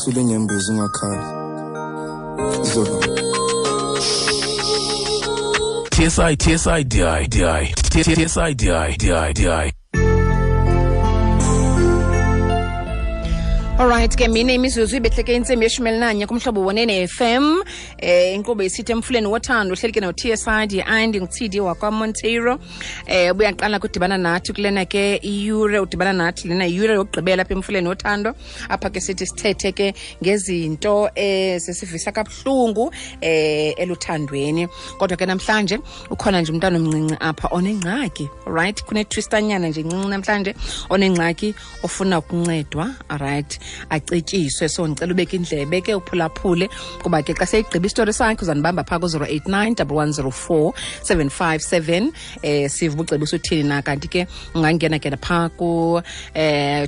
Sule nyembezi ungakhali. Izolo. TSI TSI DI DI TSI DI DI DI. Alright ke mine imizuzu ibehleke intsimbi yeshumi elinanye kumhlobo wonene FM inkqubo isithi emfuleni wothando uhleli ke no-TSI DI ndingu-TD wakwaMonteiro. Ubuyaqala kudibana nathi kulena ke iyure, udibana nathi lena iyure yokugqibela apha emfuleni wothando, apha ke sithi sithethe ke ngezinto zisivisa kabuhlungu eluthandweni. Kodwa ke namhlanje ukhona nje umntana omncinci apha onengxaki, right? Kunetwistanyana nje incinci namhlanje, onengxaki ofuna ukuncedwa, right, acetyiswe. So ndicela ubeke indlebe ke uphulaphule, kuba ke xa seyigqiba isitori sakhe uzandibamba phaa ku-089 1104 757, sive ubucebisa uthini na. Kanti ke ungangena ke phaa ku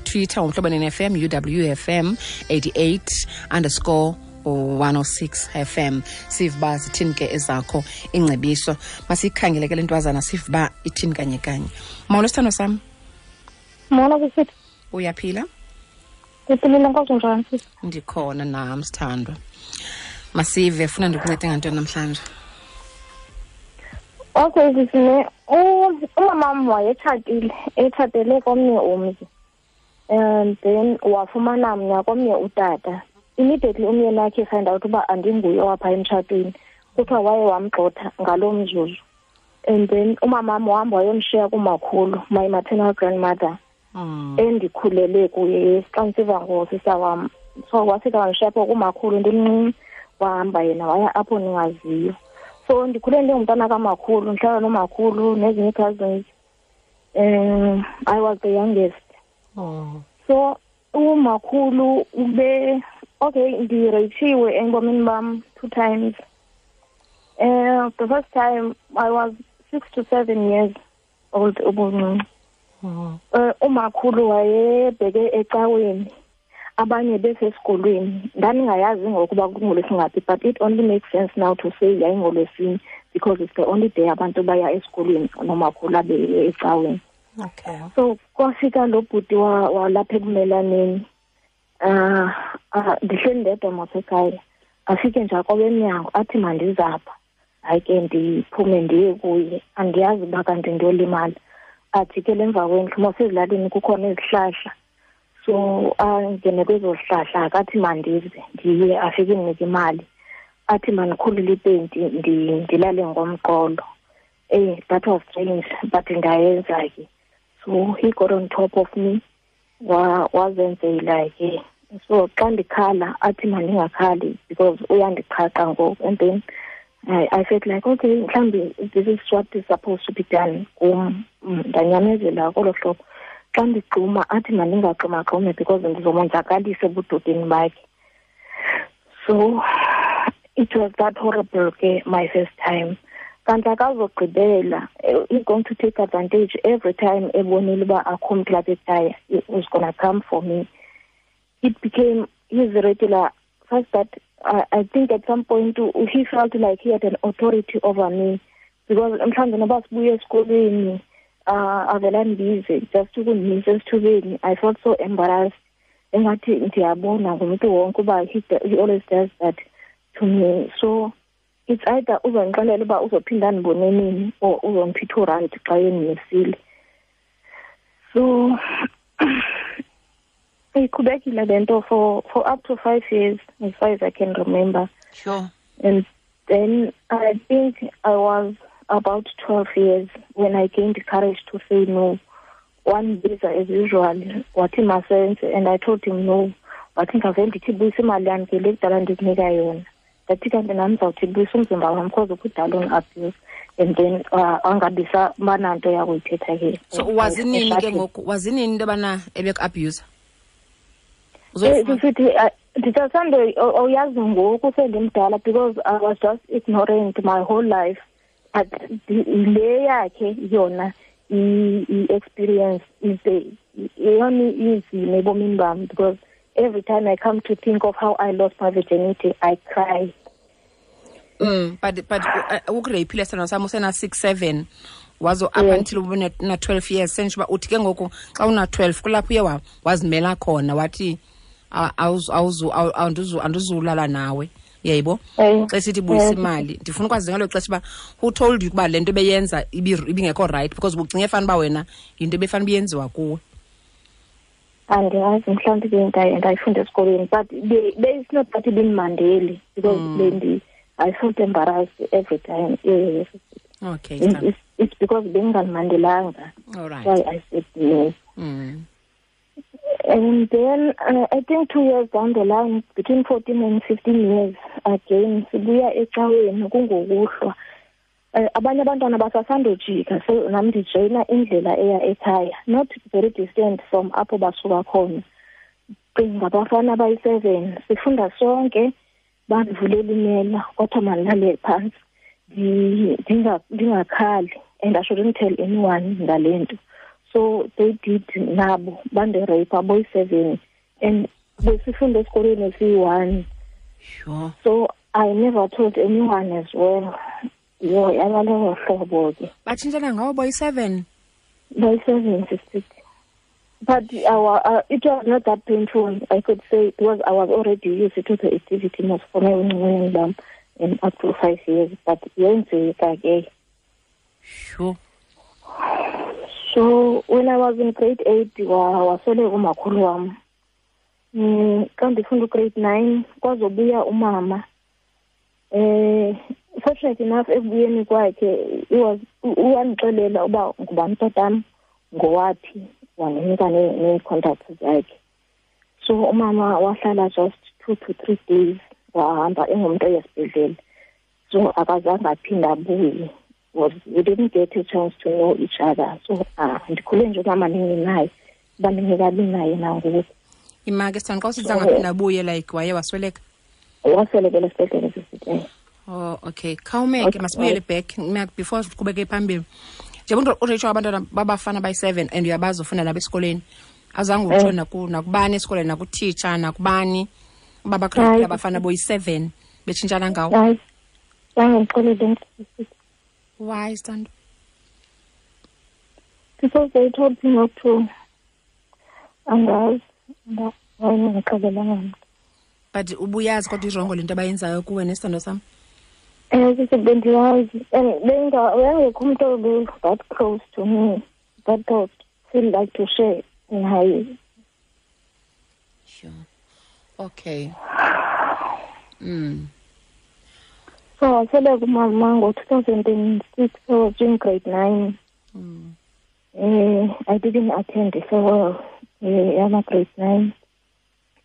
Twitter uMhlobo FM, UWFM 88 underscore 106 FM, sive uba zithini ke ezakho ingcebiso. Masiyikhangele ke le ntwazana, sive uba ithini kanye kanye. Molo sithando sam. Molo sisithi. Uyaphila? Ndiphilile, nkosi. Njani sisi? Ndikhona nam sithandwa. Masive, funa ndikuncede ngantoni namhlanje? Okay sisi, ne umamam wayetshatile, etshatele komnye umzi, and then wafumana mna komnye utata. Immediately umyeni wakhe find out uba andinguye owapha emtshatweni, kuthiwa waye wamgxotha ngaloo mzuzu. And then umamam wahamba wayomshiya kumakhulu, my maternal grandmother, endikhulele kuye xa ndisiva ngosista wam. So wafika wandishiya apho kumakhulu ndimncinci, wahamba yena waya apho ndingaziyo. So ndikhule ndingumntana kamakhulu, ndihlala nomakhulu nezinye ii-cousins. I was the youngest. So umakhulu ube okay, ndireyitshiwe ebomini bam 2 times. The first time I was 6 to 7 years old ubuncinci. Umakhulu wayebheke ecaweni, abanye besesikolweni. Ndandingayazi ngokuba kungolwesingaphi, but it only makes sense now to say yayingolwesine because it's the only day abantu baya esikolweni nomakhulu abe ecaweni. So kwafika lo bhuti walapha ekumelaneni. Ndihleli ndedwa masekhaya. Afike nje akobe emnyango athi mandizapha. Hayi ke ndiphume ndiye kuye, andiyazi uba kanti ndiyolimala. Ajikele emva kwendlu, mos ezilalini kukhona izihlahla. So angene kwezo zihlahla, akathi mandize ndiye, afike ndinike imali, athi mandikhulule ipenti ndilale ngomqolo. That was strange, but ndayenza ke. So he got on top of me, wazenzela ke. So xa ndikhala athi mandingakhali because uyandiqhaqa ngoku. And then I felt like, okay, mhlawumbi this is what is supposed to be done kum. Ndanyamezela kolo hlobo. Xa ndigxuma athi mandingagxumagxumi because ndizomonzakalisa ebudodeni bakhe. So it was that horrible ke my first time. Kanti akazogqibela, he's going to take advantage every time ebonile uba akho mntu lapha ekhaya, he was gonna come for me. It became his regular first that I think at some point he felt like he had an authority over me, because mhlawumbi noba sibuye esikolweni, avela ndibize just ukundimisa esithubeni. I felt so embarrassed, engathi ndiyabona ngumntu wonke uba he always does that to me. So it's either uzondixelela uba uzophinda andibone nini or uzondipha i-2 rand xa endimisile. So iqhubekile le nto for up to 5 years as far as I can remember. Sure. And then I think I was about 12 years when I gained the courage to say no. One visa as usual, wathi masenze, and I told him no. Wathi ngavele ndithi buyisa imali yam ke le kudala ndikunika yona. Ndathi kanti nam ndizawuthi buyisa umzimba wam because kudala undiabuse. And then angabisa bananto yakuyithetha ke. So wazinini ke ngoku? Wazinini into yobana ebeku-abuse? Sisithi, ndisasande awuyazi ngoku sendimdala because I was just ignorant my whole life. But le yakhe yona i-experience is the eyona inzima ebomini bam, because every time I come to think of how I lost my virginity, I cry. But ukureyphile sithando sam usena 6, 7 wazo up until ube na 12 years. Sentsho uba uthi ke ngoku xa una 12 kulapho uye wazimela khona wathi Andizulala nawe, yayibo? Xa sithi buyisa imali, ndifuna ukwazi ngalo xesha uba who told you ukuba le nto beyenza ibingekho right, because ubucinge fana uba wena yinto ebefana ubuyenziwa kuwe. Andiyazi, mhlawumbi ndayifunda esikolweni, but it's not that ibindimandeli because I felt embarrassed every time. Yeah. Okay. It's because bengingamandelanga. All right. Why I said no. And then I think 2 years down the line, between 14 and 15 years, again, sibuya ecaweni kungokuhlwa. Abanye abantwana basasandojika, so nami ndijoyina indlela eya ekhaya, not very distant from apho basuka khona. Cinga abafana bayi-7, sifunda sonke, bandivulela imela, kwathiwa mandilale phantsi, ndingakhali, and I shouldn't tell anyone ngale nto. So they did nabo, bandirape boyi-7, and besifunda esikolweni esiyi-1. Sure. So I never told anyone as well. Yo, yabalowo hlobo ke. Batshintshana ngawo boyi-7? Boyi-7, sister. But it was not that painful, I could say, because I was already used to the activity most for my own and up to 5 years. But yenzeka ke. Sure. So when I was in grade 8, wasweleka umakhulu wam. Xa ndifunda grade 9, kwazobuya umama. Fortunately enough, ekubuyeni kwakhe, uyandixelela uba ngubani tatam, ngowaphi, wandinika nee-contacts zakhe. So umama wahlala just 2 to 3 days, wahamba engumntu oyesibhedlele. So akazange aphinde abuye. We didn't get a chance to know each other. So ndikhule nje umama ndingenaye, uba ndingekabi naye nangoku. Imake sithanda xa usithi zange aphinde abuye, like waye wasweleka? Waswelekela esibhedlele sisithi. Oh, okay. Khawumeke, masibuyele back before siqhubeke phambili. Njengoba uRachel abantwana babafana bayi-7 and uyabazi ufunda nabo esikoleni. Azange utsho nakubani esikoleni, nakutitsha, nakubani uba bakhona abafana boyi-7 betshintshana ngawo. Hayi. Zange ndixelele. Why, Sithando? Because they told me not to. Angazi. Ndingixelelanga. But ubuyazi kodwa irongo lento abayenzayo kuwe nesithando sam? Bendiyazi. And bengekho umntu obe that close to me that I feel like to share naye. Sure. Okay. So wasweleka umama ngo-2006, I was in grade 9. I didn't attend the farewell yama grade 9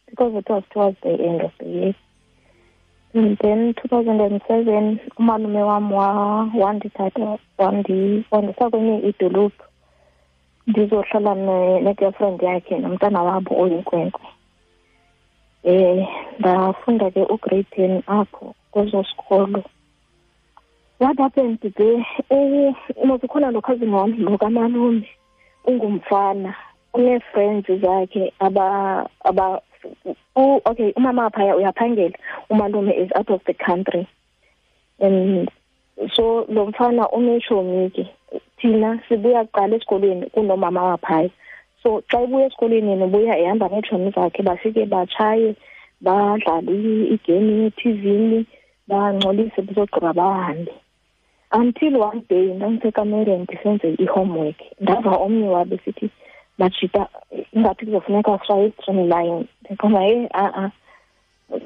because it was towards the end of the year. And then 2007, umalume wam wandithatha wandisa kwenye idolophu ndizohlala ne-girlfriend yakhe nomntana wabo oyinkwenkwe. Ndafunda ke ugrade 10 apho kweso sikolo. What happened there? Kukhona lo cousin wam lo kamalume ungumfana, une-friends zakhe aba okay, umama phaya uyaphangela, umalume is out of the country. And so lo mfana uneshomi ke, thina sibuya kuqala esikolweni kunomama waphaya. So xa ebuya esikolweni yena ubuya ehamba neetshomi zakhe, bafike batshaye, badlale igame ethivini, bangcolise bezogqiba bahambe. Until one day ndandisekamereni ndisenze i-homework, ndava omnye wabo esithi bajita ingathi kuzofuneka sishaye i-streamline. Ndiqonda hey a-a.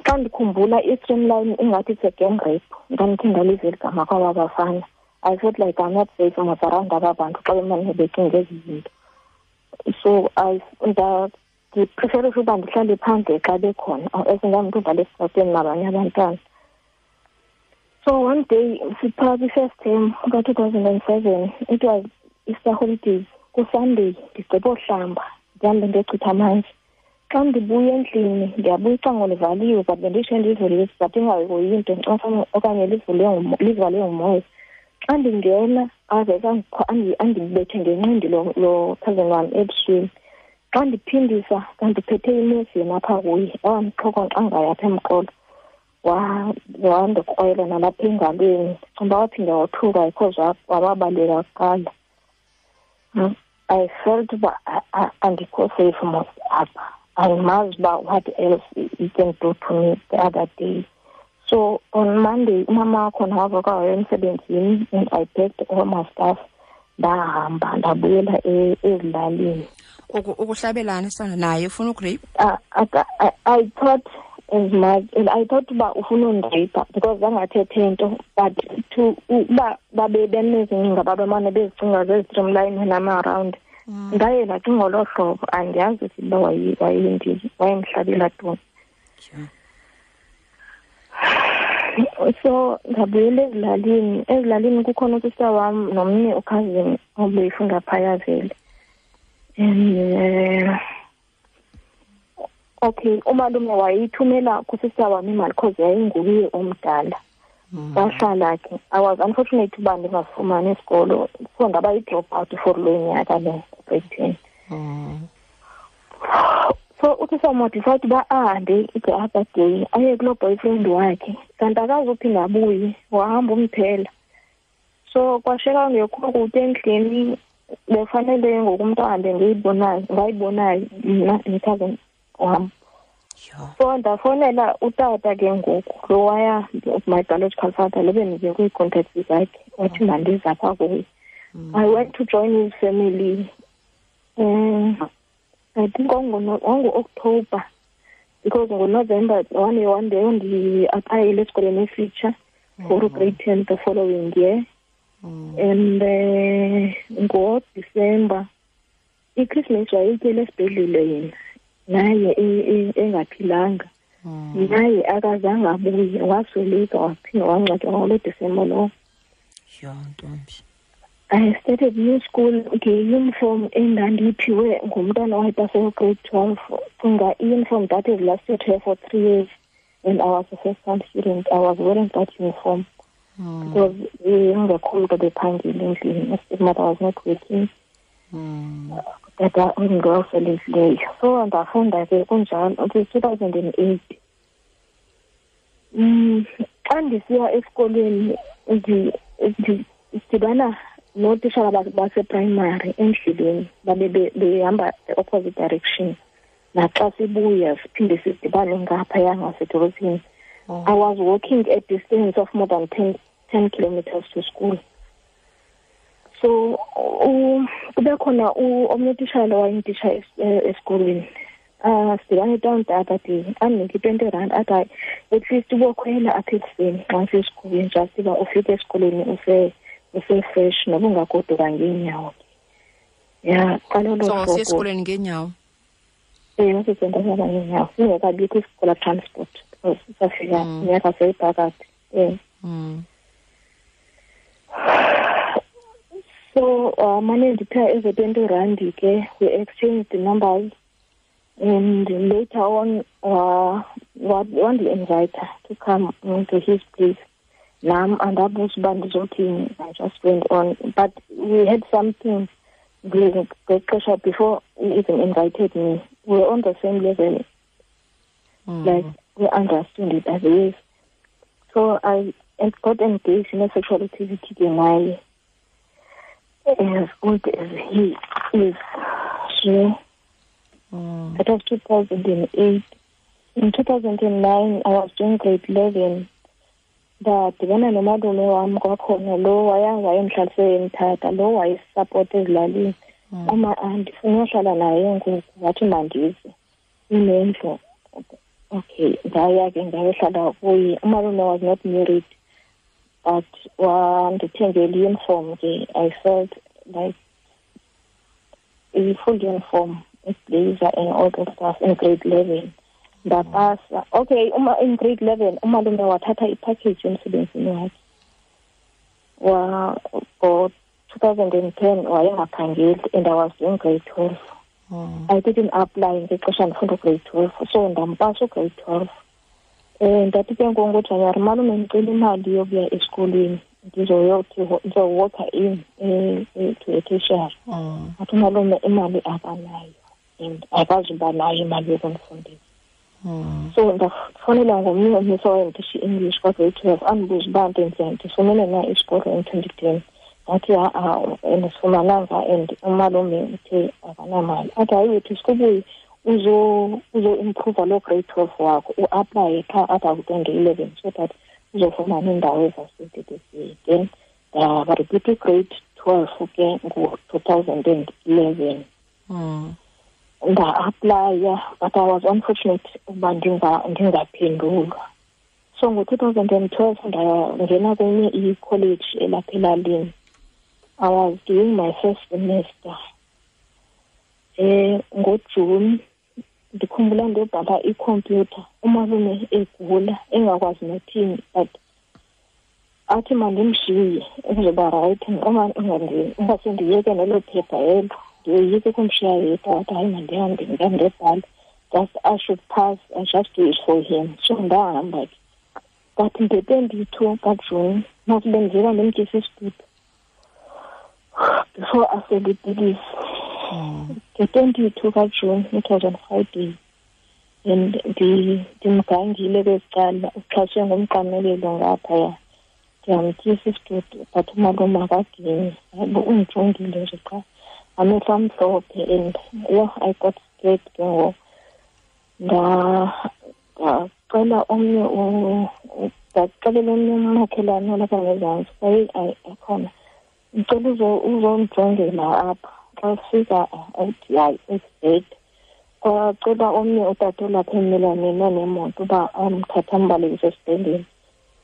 Xa ndikhumbula i-streamline ingathi it's a gang rape. Ndandikhe ndaliva eli gama kwaba bafana. I felt like I'm not safe around aba bantu xa bemane becinga ezi zinto. So ndipreferisha uba ndihlale phandle xa bekhona, as ndangumntu udlala esitratweni nabanye abantwana. So one day, siphaa kwi-first term ka-2007, it was Easter holidays, kuSunday, ndigqiba uhlamba, ndihambe ndiyochitha amanzi. Xa ndibuya endlini, ndiyabuya icango livaliwe, but benditsho ndivulile, but ingahoyi into okanye livalwe ngumoya. Xa ndingena, avese andibethe ngenqindi lo cousin wam ebusweni. Xa ndiphindisa, kandiphethe imesi yena apha kuye, wandixhokonxa ngayo apha emqolo. Wandikrwela nalapha engalweni. Ndicinga uba waphinda wothuka because wababaleka kuqala. I felt uba andikho safe mos apha. Andimazi uba what else he can do to me the other day. So on Monday, umama wakhona wavuka waya emsebenzini and I packed all my stuff. Ndahamba ndabuyela ezilalini. Ukuhlabelana sana naye ufuna ugrape? I thought as much, and I thought uba ufuna undirape because zangathethe nto, but to uba babe benezincinga babemane bezicinga zezi-streamline when I'm around. Ndaye ndacinga ngolo hlobo, andiyazi uba wayemhlabela ntoni. So ndabuyela ezilalini. Ezilalini kukhona usista wam nomnye ukhazini obeyifunda phaya vele. And okay, umalume wayithumela kusista wam imali because yayinguye omdala. Wahlala ke. I was unfortunate uba ndingafumani isikolo, so ndaba yi-drop out for lo nyaka lo grade 10. So uthi samodecide uba ahambe the other day aye kuloo boyfriend wakhe, kanti akazuphinda abuye, wahamba umphela. So kwashiyeka kungekho kutya endlini, befanele ngoku umntu ahambe ngayibonayo mna nekhazini wam. So ndafowunela utata ke ngoku lo waya, my biological father, lo bendike kwii-contacts zakhe, wathi mandize apha kuye. I went to join his family. I think ngo-October, because ngo-November one day ndi-applyile esikolweni esitsha for grade 10 the following year. And ngo-December iChristmas wayetyele esibhedlele yena, naye engaphilanga. Naye akazange abuye, wasweleka waphinda wangcwatywa ngalo December lowo. I started new school nge-uniform endandiyiphiwe ngumntana owayepase grade 12. Cinga i-uniform that has lasted her for 3 years, and I was a first-time student. I was wearing that uniform because ingekho mntu obephangile endlini. Mother was not working. Tata ungowaselekileyo. So ndafunda ke kunjalo until 2008. Xa ndisiya esikolweni ndidibana nootitshala baseprimary endleleni, babe behamba the opposite direction. Naxa sibuya siphinde sidibane ngaphaya ngasedolophini. I was walking a distance of more than 10 kilometers to school. So kube khona omnye utitshala wayendititsha esikolweni. Sidibane down the other day, andinike i-20 rand, athi hayi, at least ubokhwela apha ekuseni xa usesikolweni, just uba ufike esikolweni use-fresh noba ungagoduka ngeenyawo. Ya, qala olo hlobo. So siya esikolweni ngeenyawo? Ewe, sisendahamba ngeenyawo. Singekabikho isikolo transport because safika minyaka seyiphakathi. So mane ndiphiwa ezo 20 rand ke, we exchanged the numbers, and later on wandi-invite to come to his place. Nam andabuza uba ndizothini, I just went on. But we had something ngexesha before he even invited me. We were on the same level. Like, we understood it as is. So I got engaged in a sexual activity naye as old as he is. So that was 2008. In 2009, I was doing grade 11. Ndadibana nomalume wam kwakhona, lo wayemhlalise emthatha, lo wayesapota ezilalini. Uma andifuna uhlala naye ngoku, wathi mandize inendlu. Okay, ndaya ke ndayohlala kuye. Umalume was not married, but wandithengela i-uniform ke. I felt like a full uniform, a blazer and all that stuff in grade 11. Ndapasa. Okay, uma in grade 11 umalume wathatha ipackage emsebenzini wakhe. Ngo 2010 wayengaphangeli and I was in grade 12. I didn't apply ngexesha ndifunda grade 12, so ndampasa grade 12. Ndathi ke ngoku ngoJanuwari, malume ndicela imali yokuya esikolweni, ndizowalka in to a tertiary. Athi umalume imali akanayo and akazuba nayo imali yokumfundisa. So ndafonela ngomnye umisa owayendisha i-English kwa-grade 12, andibuza uba ndenzeni, ndifumene na isikolo in 2010. Ndathi ha-a, andisifumananga and umalume uthe akanamali. Athi hayi wethu sikubuye Uzo-improva loo grade 12 wakho, u-aplaye qha apha ku-2011 so that uzofumana indawo evasithi this year. Then ndarepeat i-grade 12 ke ngo-2011. Nda-aplaya, but I was unfortunate ukuba ndingaphendulwa. So ngo-2012 ndangena kwenye i-college elapha elalini. I was doing my first semester. NgoJune ndikhumbula ndiyobhala ikhompyutha, umalume egula engakwazi nothini, but athi mandimshiye uzoba right, ingase ndiyeke nelo phepha elo, ndiyoyike ukumshiya yedwa. Wathi hayi, mandihambe ndiyandebhala, just I should pass and just do it for him. So ndahamba ke, but nge-22 kaJuni masibe ndiziva ndimtyisa isitudu before asele ipilisi. Nge-22 kaJuni, it was on Friday, and ndimgangile kweli cala, uxhaswe ngumqamelelo ngaphaya. Ndiyamtyisa isitudu, but umalume akaginyi, hayibo, undijongile nje qha, amehlo amhlophe, and yho, I got scared ke ngoku. Ndacela omnye, ndaxelela omnye umakhelwane olapha ngezantsi, kwaye akhona, ndicela uzondijongela apha. Xa sifika athi hayi, it's dead. Kwacela omnye utata olapha emmelwaneni onemoto uba amthathe ambalekise esibhedlele,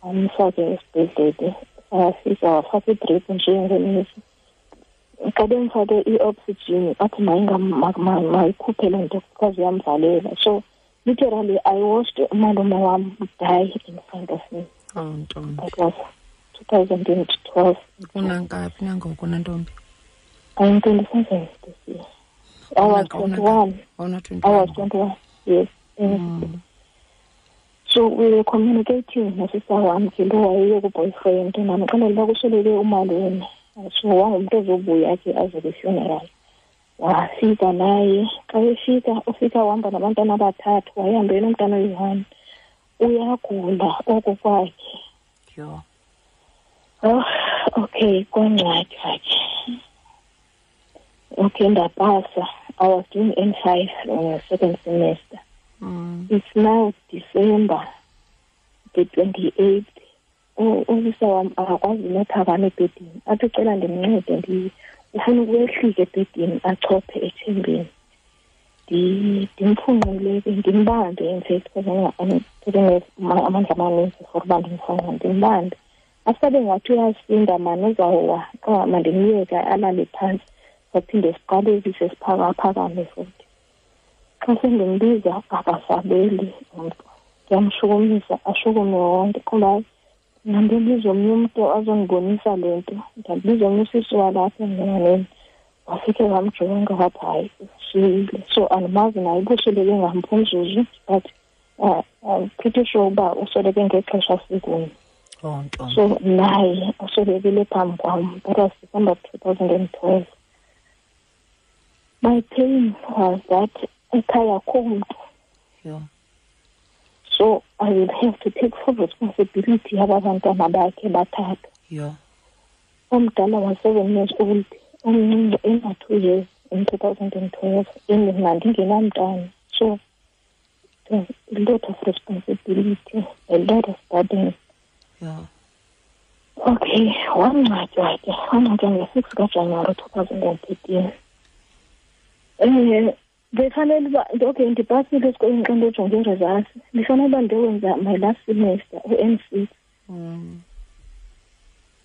amfake esibhedlele. Afika wafaka idrip nje ngenesi. Xa bemfake i-oxygen, athi mayikhuphe loo nto because iyamvalela. So literally I watched umalume wam die in front of me. Oh, ntombi. That was 2012. Unangaphi nangoku, nantombi? I'm 27 this year. I was 21. I was 21, yes. So we were communicating nosista wam ke lo wayeye ku-boyfriend, ndamxelela uba kusweleke umalume. So wangumntu ozobuya ke aze kwi-funeral. Wafika naye. Xa efika, ufika wahamba nabantwana abathathu, wayehambe nomntana oyi-1. Uyagula oko kwakhe. Yho. Oh, okay, kwangcwatywa ke. Okay, ndapasa. I was doing N5 on the second semester. It's now December the 28th. Usisa wam akakwazi nophakama ebhedini. Athi ucela ndimncede, ufuna ukwehlika ebhedini achophe ethembeni. Ndimfunqule ke, ndimbambe, in fact, because amandla amaninzi for uba ndimfunqule, ndimbambe. Asabe ngathi uyasinda mani, uzawuwa, qha mandimyeke alale phantsi. Saphinde siqalekise siphakaphakame futhi. Xa sendimbiza akasabeli umntu. Ndiyamshukumisa ashukume wonke. Kuba ndambiza omnye umntu azondibonisa le nto. Ndambiza omnye usisi walapha emnyaneni. Wafike wamjonga wathi hayi, usile. So andimazi naye uba usweleke ngamphi umzuzu, but I'm pretty sure uba usweleke ngexesha sikunye. Oh, ntombi. So naye uswelekile phambi kwam. That was December 2012. My pain was that ekhaya akho mntu. So I will have to take full responsibility yaba bantwana bakhe bathathu. Omdala was 7 years old, omncinci ena-2 years in 2012, and mna ndingenamntana. So it was a lot of responsibility, a lot of burden. Okay, wangcwatywa ke, wangcwatywa nge-6 kaJanuwari 2013. Befanele uba, okay, ndipasile esikolweni xa ndijonge ii-results. Ndifanele uba ndiyowenza my last semester, u-N6.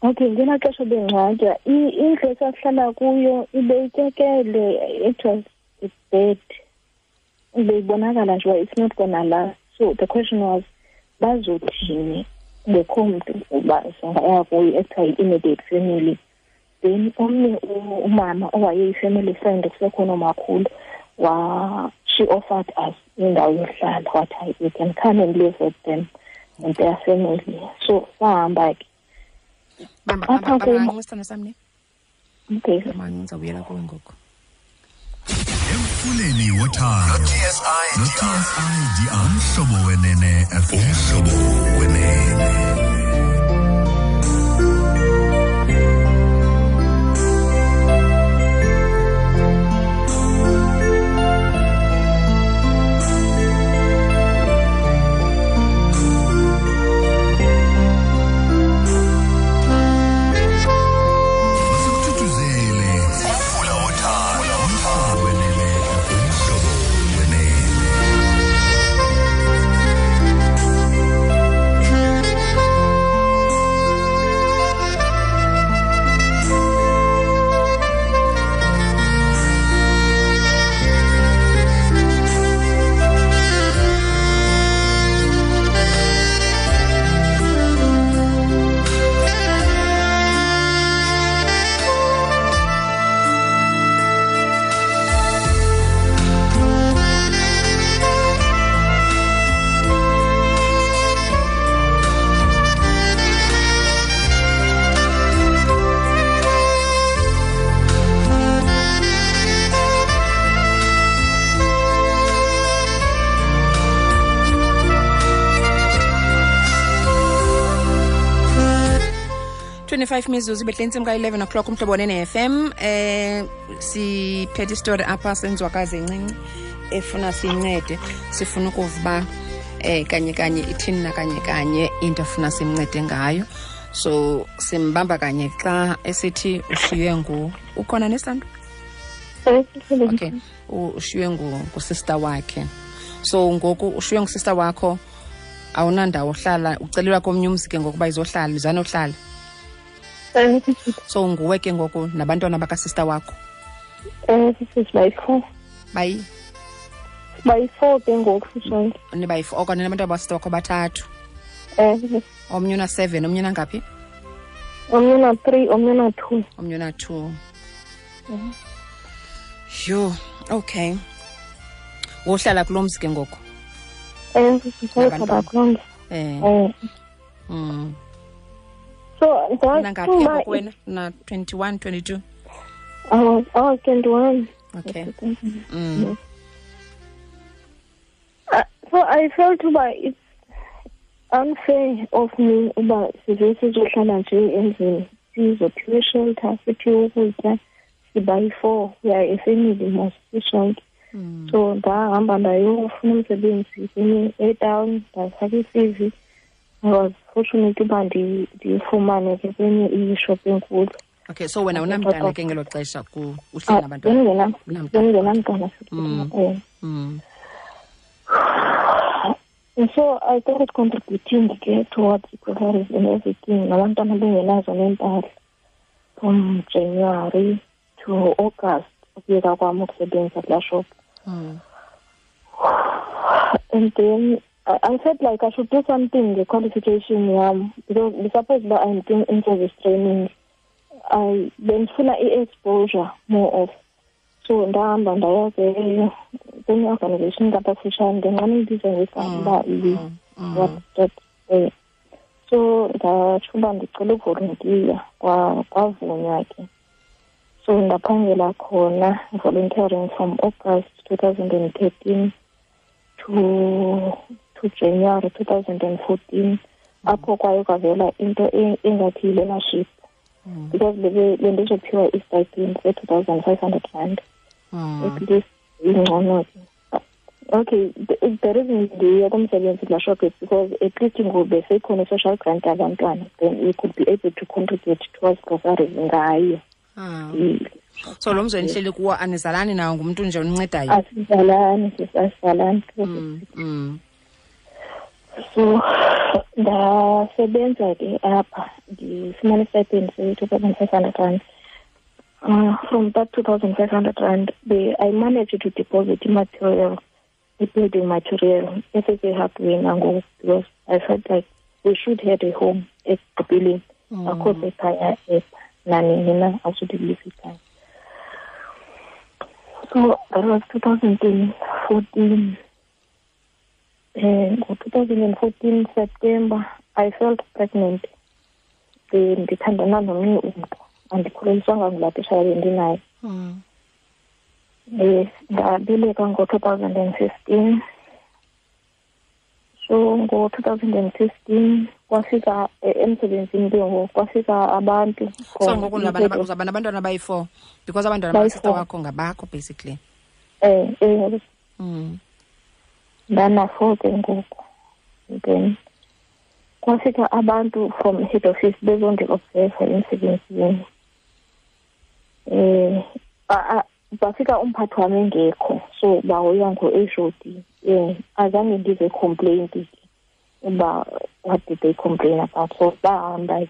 Okay, ngelaa xesha bengcwatywa, indlu esasihlala kuyo ibeyityekele, it was bad. Beyibonakala nje uba it's not gonna last. So the question was, bazothini ngekho mntu uba singaya kuyo ekuthiwa yi-immediate family. Then omnye umama owayeyi-family friend kusekhona umakhulu, she offered us indawo yohlala, wathi hayi, we can come and live with them and their family. So sahamba ke. Bamba, Apha bamba, kum- bamba, sithando sam ne. Okay. Bamba, ndizawubuyela kuwe ngoku. Emfuleni wothando no-TSIDR, Umhlobo Wenene FM. Umhlobo Wenene. 25 mizuzu ibehle intsimbi ka-11 o'clock umhlobo wenene-fm. Siphethe isitori apha senzwakazi encinci efuna siyincede, sifuna ukuva uba kanye kanye ithini na kanye kanye into afuna simncede ngayo. So simbamba kanye xa esithi ushiywe ngu, ukhona nesando? Okay, ushiywe ngusister wakhe. So ngoku ushiywe ngusister wakho, awunandawo ohlala, ucelelwa komnye umzi ke ngokuba izohlala, izanohlala. So nguwe ke ngoku nabantwana bakasister wakho. Bayi-four. Bayi? Bayi-four ke ngoku sisonke. Nibayi-four, okanye nabantwana bakasister wakho bathathu. Omnye una-7, omnye unangaphi? Omnye una-3, omnye una-2. Omnye una-2. Yho, okay. Wohlala kulo mzi ke ngoku? Sihlala kulo mzi. So, unangaphi ke ngoku wena? Una 21, 22? I was 21. Okay. So I felt uba it's unfair of me uba size sizohlala nje endlini, sizophiwe shelter, siphiwe ukutya, sibayi-four, we are a family mos sisonke. So ndahamba ndayofuna umsebenzi kwenye etown, ndafaka i-CV. I was fortunate uba ndiyifumane ke kwenye ishop enkulu. Okay, so wena unamntana ke ngelo xesha uhleli nabantwana? Bengingenamntana. And so I started contributing ke towards groceries and everything. Nabantwana bengenazo nempahla from January to August ukuyeka kwam ukusebenza kulaa shop. And then I felt like I should do something, the qualification yam, because suppose that I'm doing in-service training, I bendifuna i-exposure more of. So ndahamba ndaya ke kwenye organization ngapha kufutshane, ndinqana ibiza ngegama uba what that. So ndatsho uba ndicela uvoluntiya, kwavunywa ke. So ndaphangela khona volunteering from August 2013 to January 2014. Apho kwaye kwavela into engathi yi-learnership. Because bendizophiwa i-stipend se-2,500 rand. At least ingcono ke. Okay, the reason ndiye kumsebenzi kulaa shop is because at least ngoku besekhona i-social grant yabantwana, then we could be able to contribute towards groceries ngayo. So lo mzi enihleli kuwo anizalani nawo, ngumntu nje oncincedayo? Asizalani, asizalani. So ndasebenza ke apha, ndifumana i-stipend se-2,500 rand. From that 2,500 rand, I managed to deposit material, building material, esese-hardware nangoku, because I felt like we should have a home ekugqibeleni. Akho sekhaya epha nanini na, asudilisa ikhaya. So that was 2014. And 2014 September, I felt pregnant. Ndithandana nomnye umntu, andikhuleliswanga ngulaa titshala bendinaye. Ndabeleka ngo-2015. So ngo-2015 kwafika emsebenzini ke ngoku, kwafika abantu. So ngoku uzaba nabantwana abayi-4 because abantwana bakasister wakho ngabakho basically. Ndana-4 ke ngoku. Then kwafika abantu from head office bezondi-observa emsebenzini. Bafika umphathi wami engekho, so bahoywa ngo-HOD. Azange ndive complaint uba what did they complain about. So bahamba.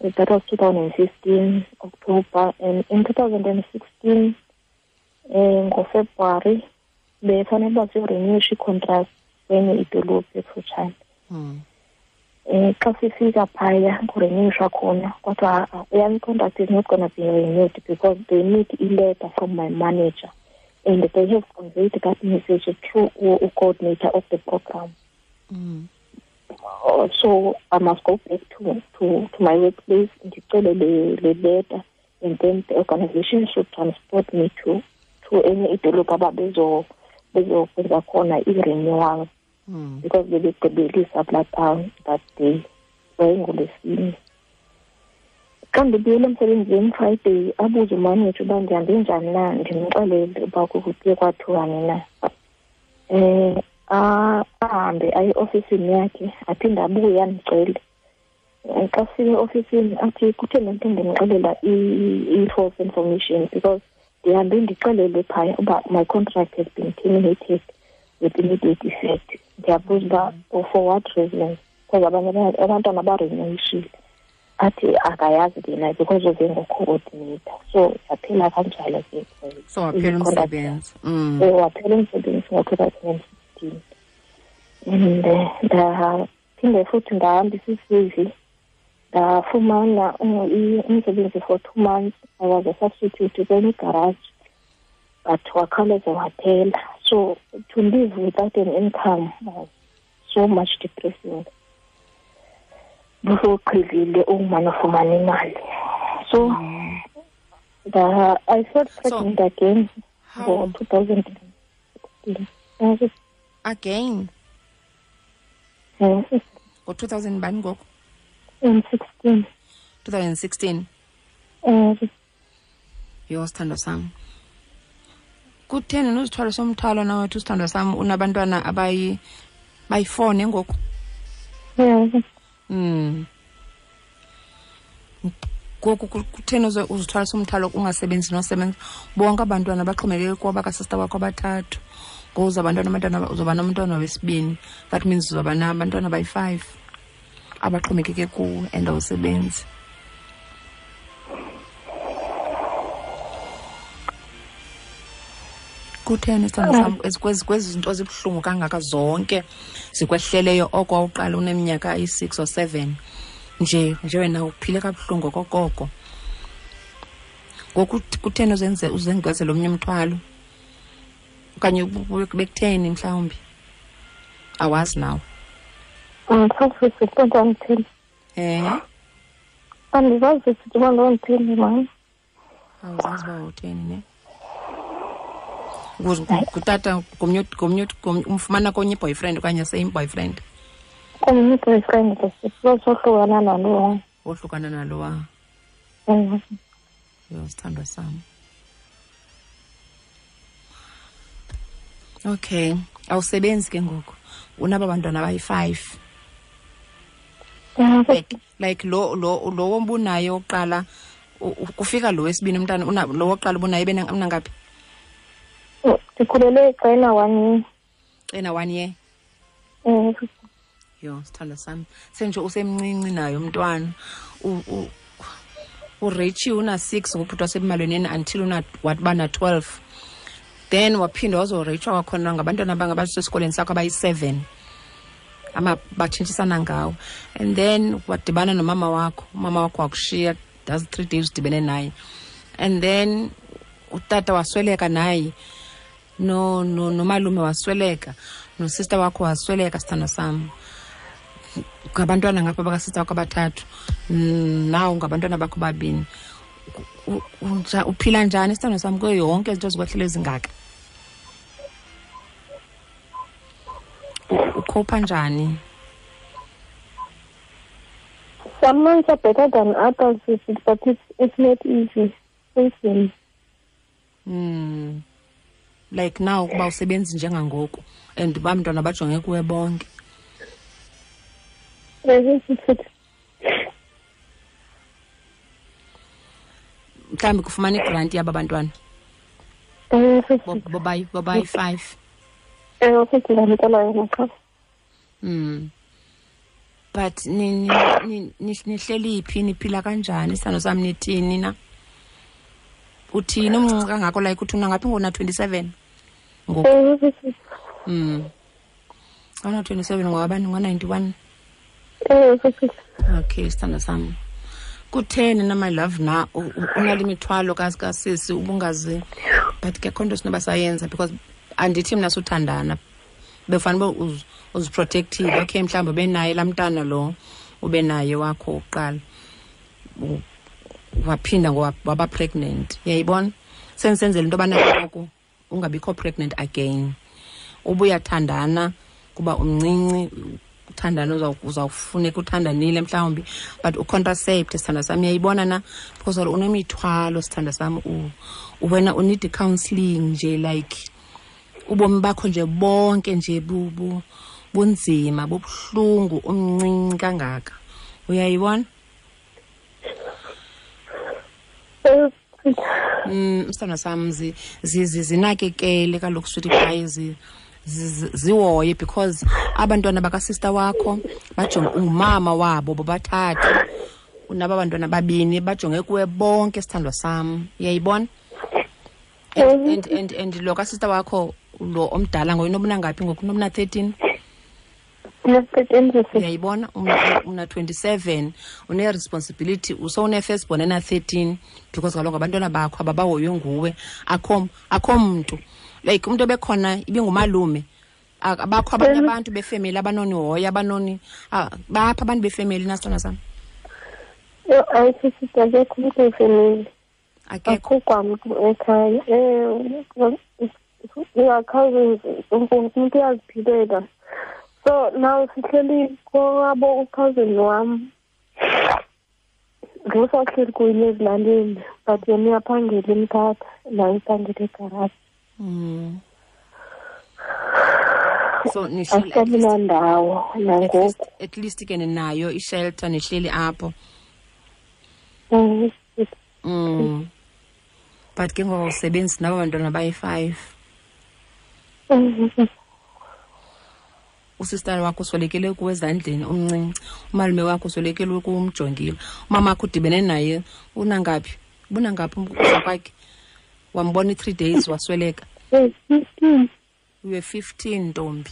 That was 2015 October, and in 2016 ngoFebruary befanele uba siyorenewisha i-contract kwenye idolophu ekufutshane. Xa sifika phaya kurenewishwa khona, kodwa eyam i-contract is not gonna be renewed because they need a letter from my manager, and they have conveyed that message through a coordinator of the program. So I must go back to my workplace ndicele le letter, and then the organization should transport me to enye idolophu ababezokwenza khona i-renewal. Because bebegqibelisa kulaa town that day, yayingolwesine. Xa ndibuyele emsebenzini Friday, abuze umaneja uba ndihambe njani na, ndimxelele uba kuye kwathiwani na. Ahambe aye eofisini yakhe, aphinde abuye andicele. Xa sifika eofisini athi kutheni le nto ndimxelela i-false information, because ndihambe ndixelele phaya uba my contract has been terminated with immediate effect. Ndiyabuza uba for what reasons, because abanye abantwana barenewishile. Athi akayazi ke naye because uze ngo-coordinator. So yaphela kanjalo ke. So waphela umsebenzi. Waphela umsebenzi ngo-2016. And ndaphinde futhi ndahambisa i-CV, ndafumana umsebenzi for 2 months. I was a substitute kwenye garage, but wakhawuleza waphela. So to live without an income was so much depressing. Busoqhelile umane ufumana imali. So I felt pregnant again for 2016. Again? Yes. Ngo-2000 bani ngoku? 16. 2016. Yho, sithandwa sam. Kutheni nozithwalo somthwalo nawethu, sithandwa sam, unabantwana abayi-4 ngoku? Yes. Ngoku kutheni uzithwala somthwalo ungasebenzi nosebenza? Bonke abantwana baxhomekeke kuba bakasista wakho abathathu. Ngoku uzawuba uzoba nomntwana wesibini. That means uzawuba nabantwana abayi-5 abaxhomekeke kuwe and awusebenzi. Kutheni sithando sam kwezi zinto zibuhlungu kangaka zonke zikwehleleyo oko wawuqala uneminyaka eyi-6 or 7 nje wena uphile kabuhlungu okokoko. Ngoku kutheni uzengezela omnye umthwalo? Okanye bekutheni mhlawumbi? Awazi nawe. Andisazi uba ndanditheni. Andizazi uba ndanditheni, mama. Awuzazi uba utheni, ne? Ngutata ngomnye umfumana konye boyfriend okanye same boyfriend? Komnye boyfriend, sohlukana nalowa. Wohlukana nalowa. Yho, sithandwa sam. Okay, awusebenzi ke ngoku. Unaba bantwana abayi-5. Like lo wobunaye oqala kufika lo wesibini umntana, lo woqala ubunaye unangaphi? Ndikhulele xa 1 year. Ena 1 year? Yho, sithandwa sam. Senje usemncinci naye umntwana. uRichie una-6 ngobhuti wasebumalweneni until waba na-12. Then waphinda wazoreyitshwa kwakhona ngabantwana abangabasesikolweni sakho abayi-7. Batshintshisana ngawo. And then wadibana nomama wakho. Umama wakho wakushiya, that's 3 days udibene naye. And then utata wasweleka naye. No nomalume wasweleka. Nosister wakho wasweleka, sithando sam. Ngabantwana ngapha bakasista wakho abathathu. Nawo ngabantwana bakho babini. Uphila njani, sithando sam, kuyo yonke izinto zikwehlele ezingaka? Ukhopha njani? Some months are better than others, but it's not easy. Like now kuba usebenzi njengangoku and bamntwana bajonge kuwe bonke. Mhlawumbi kufumana igranti yaba bantwana. Bobayi 5. But nihleli phi, niphila kanjani, sithando sam, nithini na? Uthini umncinci kangako, like uthi unangaphi ngona 27 ngoku? Una 27 ngowabani, ngo-91? Okay, sithando sam. Kutheni na, my love, na unale mithwalo kasisi ubungazi, but ke khonto sinoba sayenza because andithi mna suthandana. Befanele uba uziprotective. Okay, mhlawumbi ube naye laa mntana lo ube naye wakho uqala. Waphinda waba pregnant. Uyayibona? Senzela into yobana ngoku ungabikho pregnant again. Ubuyathandana kuba umncinci, uthandana uzawufuneka uthandanile mhlawumbi, but ucontracept, sithandwa sam, uyayibona na, because unemithwalo, sithandwa sam, wena uneed counseling nje, like ubomi bakho nje bonke nje bunzima, bubuhlungu, umncinci kangaka, uyayibona? Sithandwa sam, zinakekele kaloku, sweetie pie, zihoye, because abantwana bakasista wakho bajonge ungumama wabo bobathathu, unaba bantwana babini bajonge kuwe bonke, sithandwa sam, uyayibona? And lo kasista wakho lo omdala ngoyena obunangaphi ngoku, unomna 13? Uyayibona, una 27, une-responsibility, usowune-first born ena-13, because kaloku abantwana bakho ababahoywe nguwe, akho mntu, like umntu obekhona ibingumalume, abakho abanye abantu befemeli abanonihoya, abanoni bapha abantu befemeli nasitwana sam? Yho, hayi sisi, akekho umntu wefemeli. Akekho kwamntu ekhaya. Cousins, umntu uyaziphilela. So now sihleli kwabo ucousin wam, ngosahleli kunye ezilalini, but yena uyaphangela eMthatha, naye uphangela egaraji. So nihleli nandawo nangoku. At least ke ninayo ishelter, nihleli apho. But ke ngoku awusebenzi nabo bantwana bayi-5. Usistara wakho uswelekele kuwe ezandleni umncinci, umalume wakho uswelekele kuwe umjongile, umama wakho udibene naye unangaphi, bunangaphi ukufa kwakhe, wambona i-3 days wasweleka. 15. You were 15, ntombi.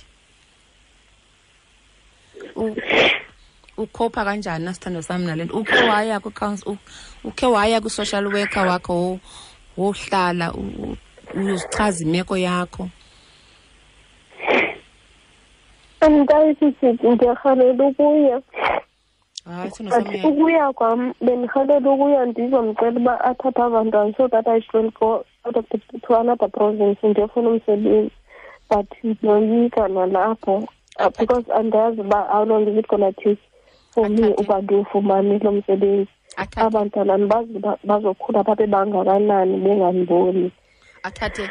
Ukhopha kanjani nasithando sami nale nto? Ukhe waya kwi-council, ukhe waya kwi-social worker wakho wohlala uyozichaza imeko yakho? Andikayi sisi, ndiyarhalela ukuya. Hayi, sithando sami. Ukuya kwam, bendirhalela ukuya ndizomcela uba athathe abantwana so that I should go out of the, to another province ndiyofuna umsebenzi, but ndiyoyika nalapho, because andiyazi uba how long is it gonna take for me uba ndiwufumane lo msebenzi. Abantwana andibazi uba bazokhula babe bangakanani bengandiboni. Athathe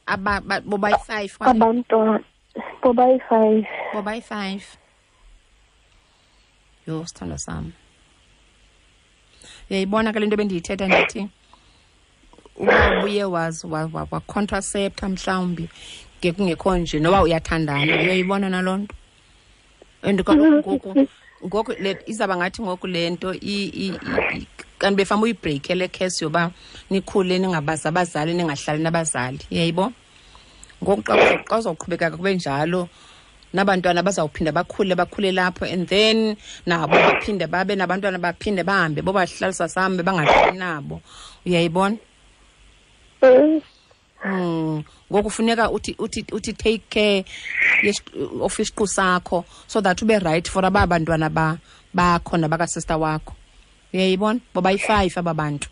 bobayi-5? Abantwana bobayi-5. Bobayi-5. Yho, sithandwa sam, uyayibona ke le nto bendiyithetha, ndithi uba ubuye wacontracepta mhlawumbi ngekungekho nje noba uyathandana, uyayibona naloo nto. And kaloku ngoku le izawuba ngathi ngoku le nto kanti befama uyibhreyikhe le khesi yoba nikhule ningabazi abazali, ningahlali nabazali, uyayibo? Ngoku xa uzawuqhubekeka kube njalo, nabantwana bazawuphinda bakhule lapho, and then nabo baphinde babe nabantwana, baphinde bahambe bobahlalisa sambe bangahlali nabo, uyayibona? Ngoku funeka uthi take care of isiqu sakho so that ube right for aba bantwana bakho nabakasista wakho, uyayibona? Bobayi-5 aba bantu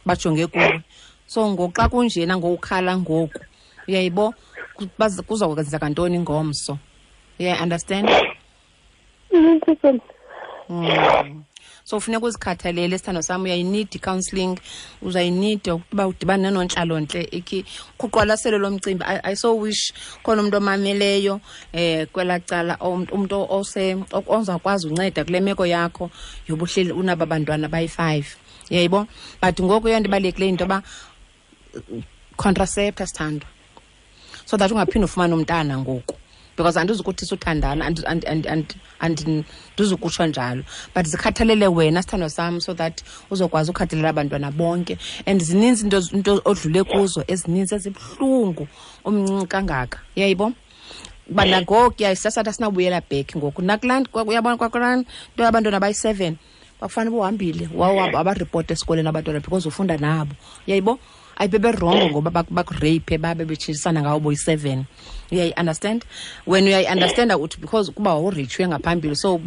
bajonge kuwe. So ngoku xa kunjena ngokukhala ngoku, uyayibo, kuzokwenzeka ntoni ngomso? Uyayi-understand? So funeka uzikhathalele, sithando sami, uyayinida i-counselling, uzayinida ukuba udibane nenontlalontle, ikhi kuqwalaselo lomcimbi. I so wish khona umuntu omameleyo kwelaa cala, umntu ozawukwazi unceda kule meko yakho yobuhleli unaba bantwana bayi-5, uyayibo? But ngoku eyona nto ibalulekileyo yinto yoba contracepta, sithandwa, so that ungaphinde ufumane umntana ngoku, because andizukuthi suthandana, andizukutsho njalo, but zikhathalele wena, sithandwa sam, so that uzokwazi ukhathalela abantwana bonke. And zininzi into odlule kuzo ezininzi ezibuhlungu umncinci kangaka, uyayibo? Uba nangoku yayisasathi asinawubuyela back ngoku nakulaa, uyabona, kwakulaa nto yabantwana bayi-7, kwakufanele uba uhambile wabaripota esikolweni abantwana because ufunda nabo, uyayibo? Ayibeberongo ngoba bakureyiphe, babe betshintshisana ngawo boyi-7, uyayi-understand? Wena uyayi-understanda uthi because kuba wawuritshwe ngaphambili, so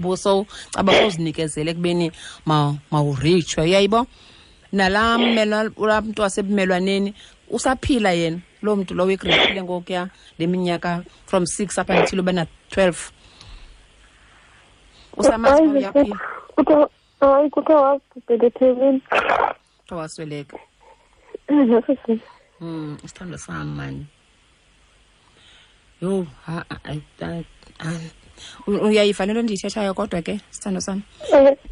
caba sowuzinikezele ekubeni mawuritshwe, uyayibo? Nalaa laa mntu wasebumelwaneni usaphila yena, loo mntu lowo ikureyphile ngokuya le minyaka from 6 up until ube na-12. Usamazi uba uyaphila? Kuthiwa hayi, kuthiwa wabhubhela eThekwini. Kuthiwa wasweleka. Isithandwa sami mani. Yho, uyayiva le nto ndiyithethayo kodwa ke sithando sami.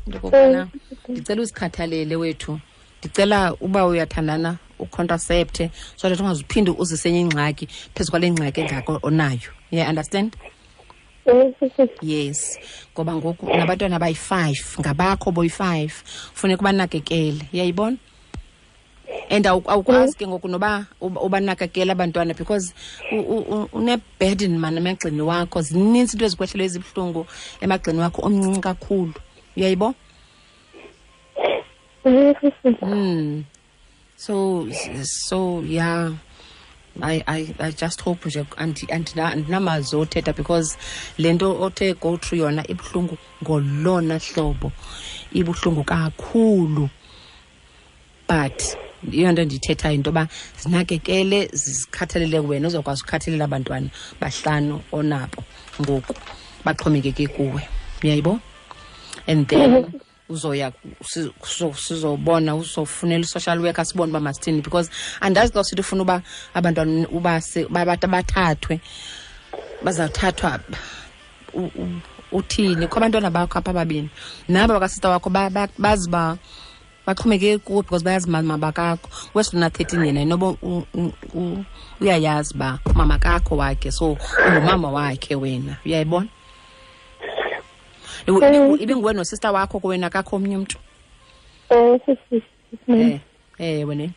Into okokubana ndicela uzikhathalele wethu. Ndicela uba uyathandana ucontracepte so that ungazuphinde uzise enye ingxaki phezu kwale ngxaki engako onayo. Yeah, understand? Yes, ngoba ngoku nabantwana abayi-5 ngabakho boyi-5, funeka ubanakekele, uyayibona? And awukwazi ke ngoku noba ubanakekele abantwana because une-burden man emagxeni wakho. Zininzi into ezikwehlelo ezibuhlungu emagxeni wakho, omncinci kakhulu, uyayibo? So yeah, I just hope nje andinamazwi othetha because le nto othe go through yona ibuhlungu ngolona hlobo, ibuhlungu kakhulu. But iyo nto ndiyithethayo into yoba zinakekele, zikhathalele wena, uzokwazi ukukhathalela abantwana bahlanu onabo ngoku baxhomekeke kuwe, uyayibo? And then uzoya sizobona, uzofunela i-social worker sibone uba masithini, because andazi xa sithi ufuna uba abantwana uba bathathwe, bazawuthathwa uthini? Kho abantwana bakho apha ababini naba bakasista wakho bazi uba baxhomekeke kuwe because bayazi mama bakakho. Wesilona 13 yena inoba uyayazi uba mama kakho wakhe, so ungumama wakhe wena, uyayibona? Ibinguwe nosista wakho kuwena kakho omnye umntu? Wena.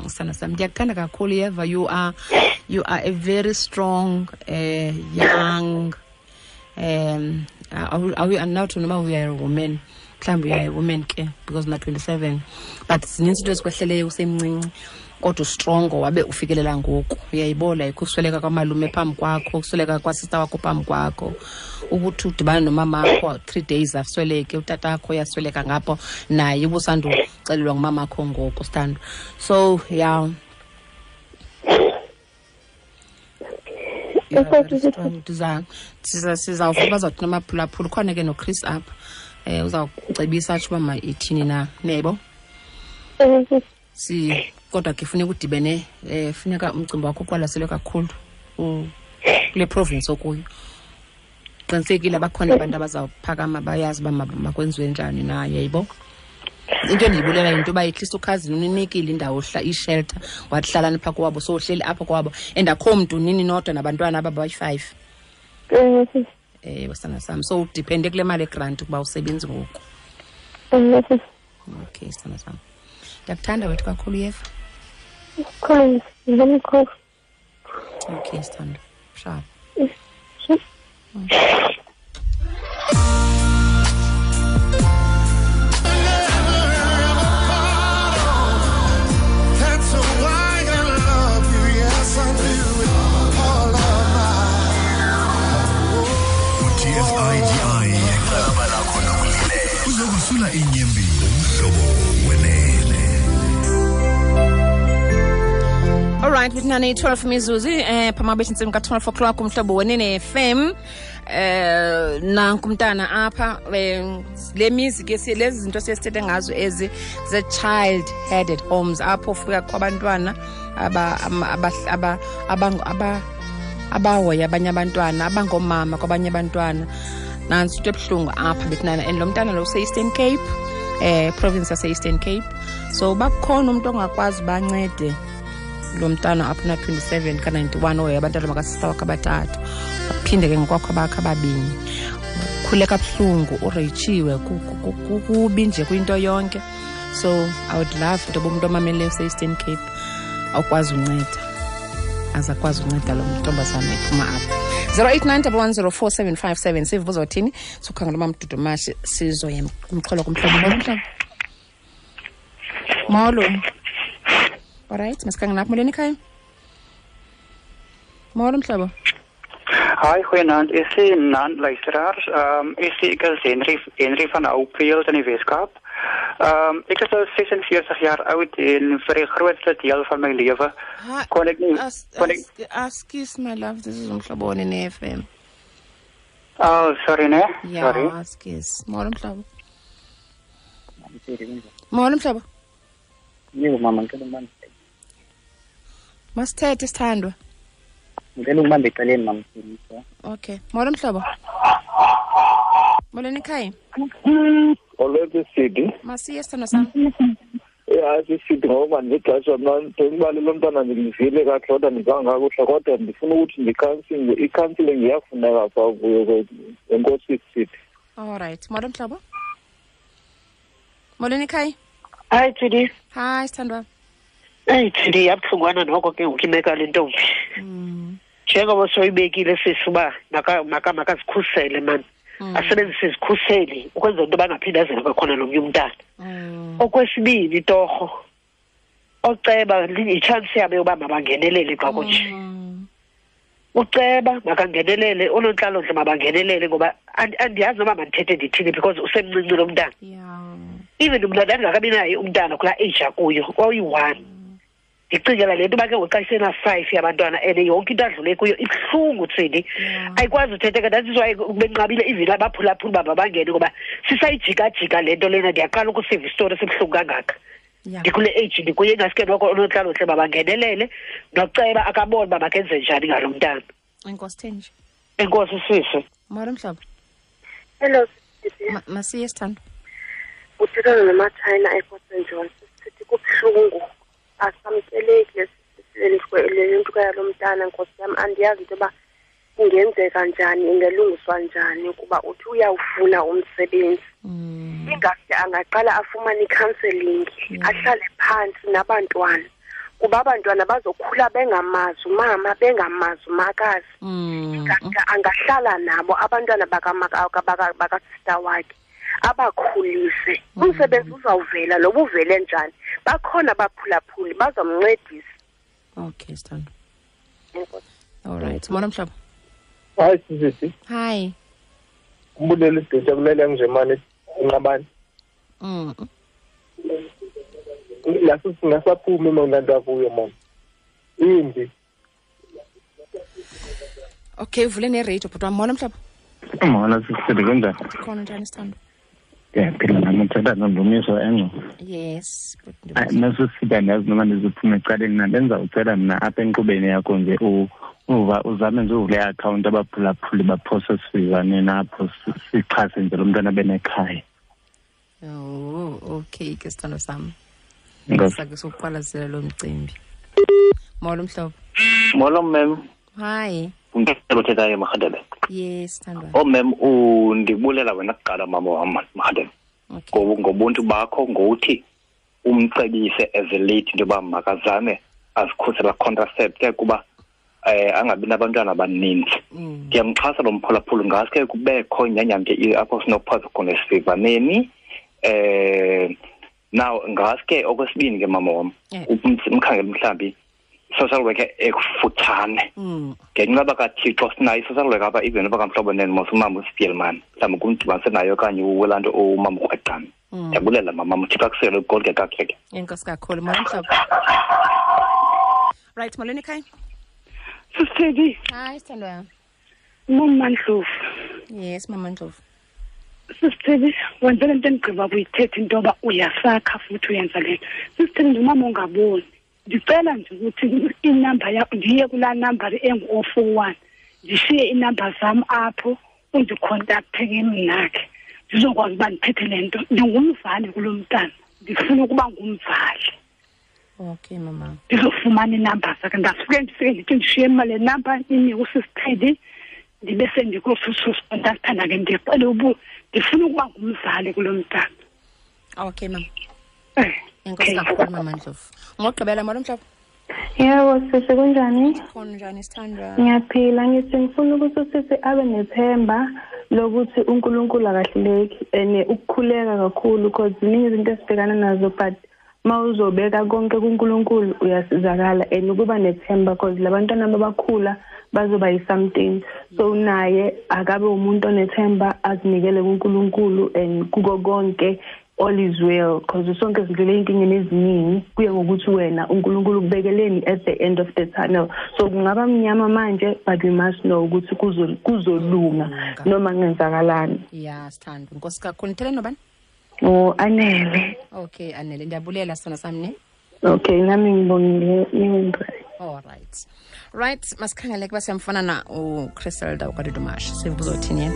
Sana sam, ndiyakuthanda kakhulu yeva. You are a very strong young andinawuthi noba we are a woman, mhlawumbi uyayi woman ke because una 27, but zininzi into ezikwehleleyo usemncinci kodwa ustrongo wabe ufikelela ngoku, uyayibola. Ukusweleka kwamalume phambi kwakho, ukusweleka kwasista wakho phambi kwakho, ukuthi udibane nomamakho 3 days asweleke, utatakho uyasweleka ngapho naye ubusanduxelelwa ngumamakho ngoku, sithando. So yeah, sizawuva bazawuthi namaphulaphula. Ukhona ke noChris apha, uzawucebisa atsho uba ma ithini na, niyayibona? Kodwa ke funeka udibene, funeka umcimbi wakho uqwalaselwe kakhulu kule province okuyo. Qinisekile bakhona abantu abazawuphakama bayazi uba makwenziwe njani na, yayibo? Into endiyibulela yinto yoba at least ukhazini uninikile indawo ishelter, wathi hlalani phaa kowabo, so uhleli apho kowabo and akho mntu nini nodwa nabantwana aba bayi-5. Sana sam, so udiphende kule mali egranti ukuba usebenzi ngoku. Okay, sana sam, ndiyakuthanda wethu kakhulu yeva. Okay, sithando. Sharp. Uzokusula inyembi umhlobo wenene. All right, with nani 12 mizuzu phama bethi intsimbi ka-12 o'clock umhlobo wenene FM. Nanku umntana apha, le mizi ke lezi zinto siyesithethe ngazo ezi ze-child headed homes, apho ufika kwabantwana abahoya abanye abantwana, abangomama kwabanye abantwana. Nantsi into ebuhlungu apha bethinana, and lo mntana lo use-Eastern Cape, province yase-Eastern Cape. So bakhona umntu ongakwazi bancede lo mntana apho na-27 ka-91 ohoya abantwana bakasista wakhe abathathu, aphinde ke ngokwakho abakhe ababini. Ukhule kabuhlungu, ureyitshiwe, kubi nje kwinto yonke. So I would love into yoba umntu omameleyo use-Eastern Cape awukwazi unceda, azakwazi unceda lo ntombazana ephuma apha. 089 1104757 sive uzothini, sikhangela uMamdudumashe, sizoya kumxholo kumhlobo. Molo mhlobo. Molo. Alright, masikhangela apha. Molweni ekhaya. Molo mhlobo. Hi, goeienaand. Is naand luisteraars. Ek is Henry van Hopefield in die Weskaap. Ek is nou 46 jaar oud en vir die grootste deel van my lewe kon ek nie Excuse my love, this is Umhlobo Wenene FM. Oh, sorry ne. Ja, Sorry. Skus. Molo mhlobo. Molo mhlobo. Yebo mama, ngicela ukubamba. Masithethe sithandwa. Ngicela ukubamba eceleni mama. Okay. Molo mhlobo. Molweni ekhaya. Olwethu Sidi. Masiye sithandwa sam. Ya sisithi ngoba ndixesha mna ndibale lo mntana ndivile kakuhle kodwa ndivanga kakuhle kodwa ndifuna ukuthi ndi-counseling, i-counseling iyafuneka phaa kuyo enkosi Sidi. All right. Molo mhlobo. Molweni ekhaya. Hayi Tsidi. Hi sithandwa. Eyi Tsidi, yabuhlungwana noko ke ngoku imeko yale ntombi. Njengoba soyibekile sisi uba makazikhusele mani. Asebenzise izikhuseli ukwenzela into yoba angaphinde azele kwakhona nomnye umntana. Okwesibini torho, oceba yitshansi yabo yoba mabangenelele xa kunje. Uceba makangenelele, oonontlalontle mabangenelele ngoba andiyazi noba mandithethe ndithini because usemncinci lo mntana. Even mna ndandingakabi naye umntana kulaa age akuyo, oyi-1. Ndicingela le nto uba ke ngoku xa isena-5 yabantwana and yonke into adlule kuyo ibuhlungu Tsidi. Ayikwazi uthetheka. That is why benqabile even abaphulaphuli uba mabangene ngoba sisayijikajika le nto lena. Ndiyaqala ukusiva isitori esibuhlungu kangaka. Ndikule age ndikuye, ingaske noko oonontlalontle mabangenelele noceba akabone uba makenze njani ngalo mntana. Enkosi Thenji. Enkosi sisi. Molo mhlobo. Hello sisi. Masiye sithandwa. Uthethana noMachina ePort St John. Sithi kubuhlungu, asamkeleki le nto yalo mntana nkosi yam. Andiyazi into yoba ingenzeka njani, ingelungiswa njani kuba uthi uyawufuna umsebenzi. Ingaske angaqala afumane i-counseling, ahlale phantsi nabantwana kuba abantwana bazokhula bengamazi umama, bengamazi umakazi. Ingaske angahlala nabo abantwana bakasista wakhe abakhulise. Umsebenzi uzawuvela noba uvele njani, bakhona abaphulaphuli bazomncedisa. Okay sithandwa. All right. Molo mhlobo. Hi sisi. Hi. Umbulele isidutsha kulele nje mane inqabane. Laso singasaphumi mna nto akuyo mama. Imbi. Okay, uvule ne-radio bhuti wam. Molo mhlobo. Molo sisi, kunjani? Khona njani sithandwa? Ndiyaphila nam, uthetha noNdumiso Engco. Yes. Nasisida andiyazi noma ndizophuma ecaleni na, bendizawucela mna apha enkqubeni yakho nje uzame nje uvule iakhawunti abaphulaphuli baphose sivaneni apho sixhase nje lo mntwana benekhaya. Oh, okay ke sithando sam. Sake sokuqwalasela lo mcimbi. Molo mhlobo. Molo ma'am. Hi. Ungicela uthethayo Marhadebe. Yes, sithandwa. Oh ma'am, undibulela wena kuqala mama wam Marhadebe. Okay. Ngobuntu bakho ngokuthi umcebise as a lady into yoba makazame azikhusela contracept kuba angabi nabantwana abaninzi. Ndiyamxhasa lo mphulaphuli ngaske kubekho inyanyamke apho sinokuphaza khona esivaneni. Now ngaske okwesibini ke mama wam, umkhangele mhlambi social worker ekufutshane. Ngenxa kaThixo sinayo i-social worker apha even noba kamhlobo nene mos umama uSpielman mhlawumbi kumdibanise nayo okanye uwelaa nto umama ukrweqana. Ndiyabulela mama, uThixo akusele ugodke kakuhle ke. Enkosi kakhulu. Molo mhlobo. Right, molweni ekhaya. Sisithedi. Hi sithandwa. Mama Ndlovu. Yes, Mama Ndlovu. Sisithedi, wenze le nto endigqiba kuyithetha into yoba uyasakha futhi uyenza le nto. Sisithedi, ndingumama ongaboni. Ndicela nje ukuthi inamba yakho ndiye kulaa namba engu-041 ndishiye iinamba zam apho undikhontakthe ke mna ke ndizokwazi uba ndiphethe le nto. Ndingumzali kulo mntana, ndifuna ukuba ngumzali. Okay mama. Ndizofumana iinamba zakhe. Ndasuke ndifike ndithi ndishiye mna le namba inike usisithedi ndibe sendikususukontaktana ke ndicele ndifuna ukuba ngumzali kulo mntana. Okay mama. Enkosi kakhulu mama Ndlovu. Ngokugqibela molo mhlobo. Yebo sisi, kunjani? Khona njani sithandwa? Ngiyaphila. Ngithi ngifuna ukuthi usisi abe nethemba lokuthi uNkulunkulu akahluleki and ukukhuleka kakhulu because ziningi izinto esibhekana nazo but mawuzobeka konke kuNkulunkulu uyasizakala and ukuba nethemba because labantwana abakhula bazoba yi-something. So naye akabe umuntu onethemba azinikele kuNkulunkulu and kuko konke All is well, because sonke sidlule inkingeni eziningi, kuye ngokuthi wena uNkulunkulu ukubekeleni at the end of the tunnel. So kungaba mnyama manje, but we must know ukuthi kuzolunga noma kungenzakalani. Yeah, sithando. Nkosi kakhulu. Nithele nobani? Oh, Anele. Okay, Anele, ndiyabulela sona sami ne. Okay, nami ngibongile. All right. Right, masikhangele kuba siyamfuna na uChriselda uKadudumash. Sivuzothini yena?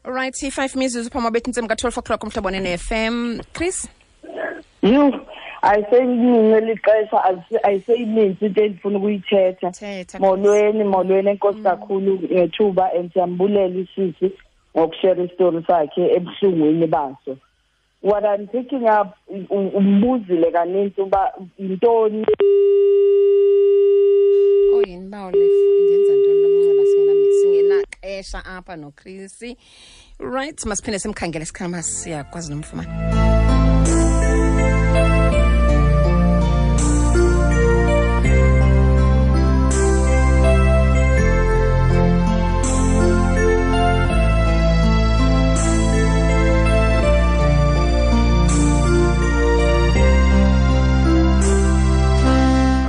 Right, 5 mizuzu phambi bethi intsimbi ka-12 o'clock umhlobo ne-FM. Chris? You, ayiseyiningi lixesha, ayiseyininzi into endifuna ukuyithetha. Molweni, molweni, enkosi kakhulu ngethuba, and siyambulela isisi ngokushare isitori sakhe ebuhlungwini baso. What I'm picking up, umbuzile kaninzi uba yintoni. Oh, yini bawo le ndenza ntoni lo mnxeba singenaxesha apha noChris. Right, masiphinde simkhangele sikhama siyakwazi nomfumana.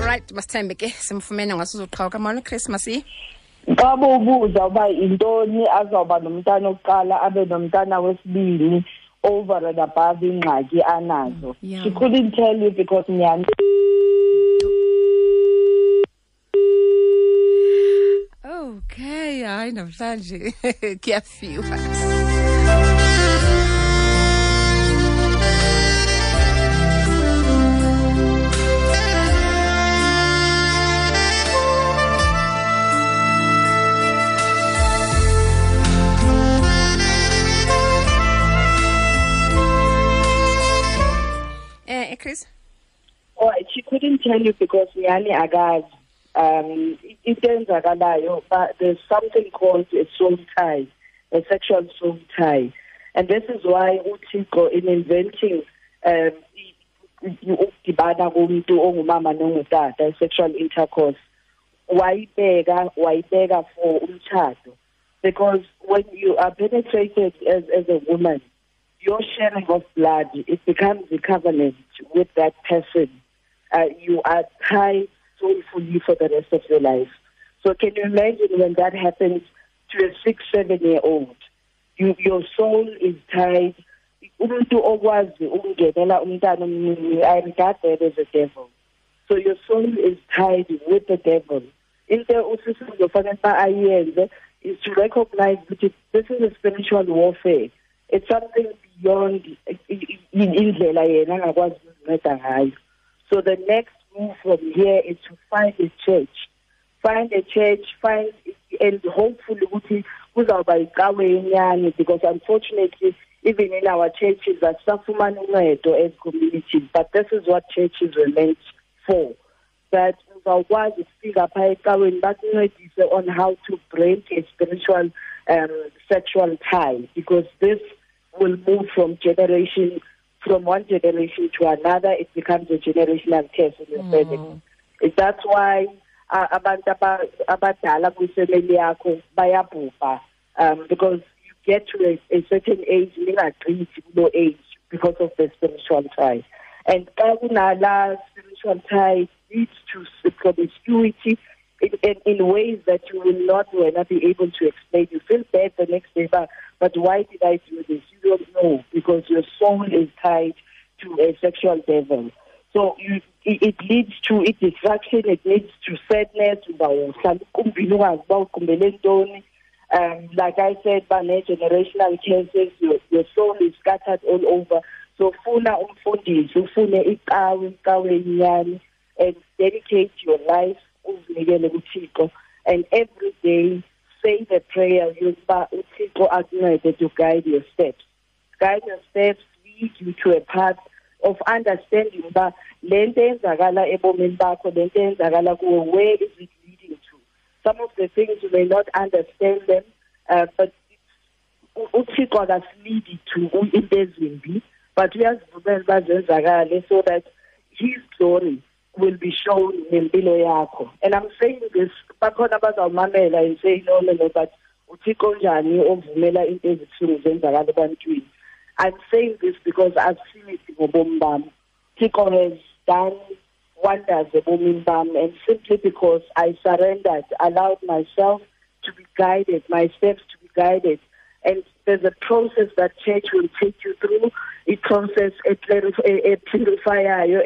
Right, masithembe ke simfumene ngasuzoqhawuka. Molo Chris, masi. Xa ubuza uba yintoni azawuba nomntana okuqala abe nomntana wesibini over and above ingxaki anazo. Yeah. She couldn't tell you because nyani. Okay, hayi namhlanje kuyafiwa. Chris? Oh, she couldn't tell you because nyani akazi. Into enzakalayo, but there's something called a soul tie, a sexual soul tie. And this is why uThixo in inventing ukudibana komuntu ongumama nongutata, sexual intercourse, wayibeka for umtshato. Because when you are penetrated as a woman, your sharing of blood, it becomes a covenant with that person. You are tied soulfully for the rest of your life. So can you imagine when that happens to a 6, 7-year-old? Your soul is tied. Umuntu okwazi ukungenela umntana omncinci, I regard that as a devil. So your soul is tied with the devil. Into usisi uzofanele uba ayenze is to recognize that this is a spiritual warfare. It's something beyond indlela yena angakwazi ukuzinceda ngayo. So the next move from here is to find a church. Find a church, find, and hopefully ukuthi kuzawuba icawe yenyani, because unfortunately even in our churches asisafumani uncedo as communities, but this is what churches were meant for. That uzawukwazi ukufika phaa ecaweni bakuncedise on how to break a spiritual sexual tie, because this will move from generation, from one generation to another. It becomes a generational curse in your family. That's why abantu abadala kwifamily yakho bayabhubha, because you get to a certain age, ningagqithi kulo age because of the spiritual tie. And xa kunala spiritual tie leads to promiscuity in ways that you will not be able to explain. You feel bad the next day, but why did I do this? You don't know, because your soul is tied to a sexual devil. So it leads to distraction, it leads to sadness. Like I said, generational cases, your soul is scattered all over. So funa umfundisi, ufune icawe nyani, and dedicate your life uzinikele kuThixo, and every day say the prayer yokuba uThixo akuncede to guide your steps. Guide your steps, lead you to a path of understanding uba le nto eyenzakala ebomini bakho, le nto eyenzakala kuwe, where is it leading to? Some of the things you may not understand them, but uThixo akasilidi to into ezimbi, but uyazivumela uba zenzakale so that his glory will be shown nempilo yakho. And I'm saying this, bakhona abazawumamela and say, no, no, no, but uThixo njani ovumela into ezibuhlungu zenzakala ebantwini? I'm saying this because I've seen it ngobomi bam. Thixo has done wonders ebomini bam, and simply because I surrendered, allowed myself to be guided, my steps to be guided. And there's a process that church will take you through, a process, a purifier,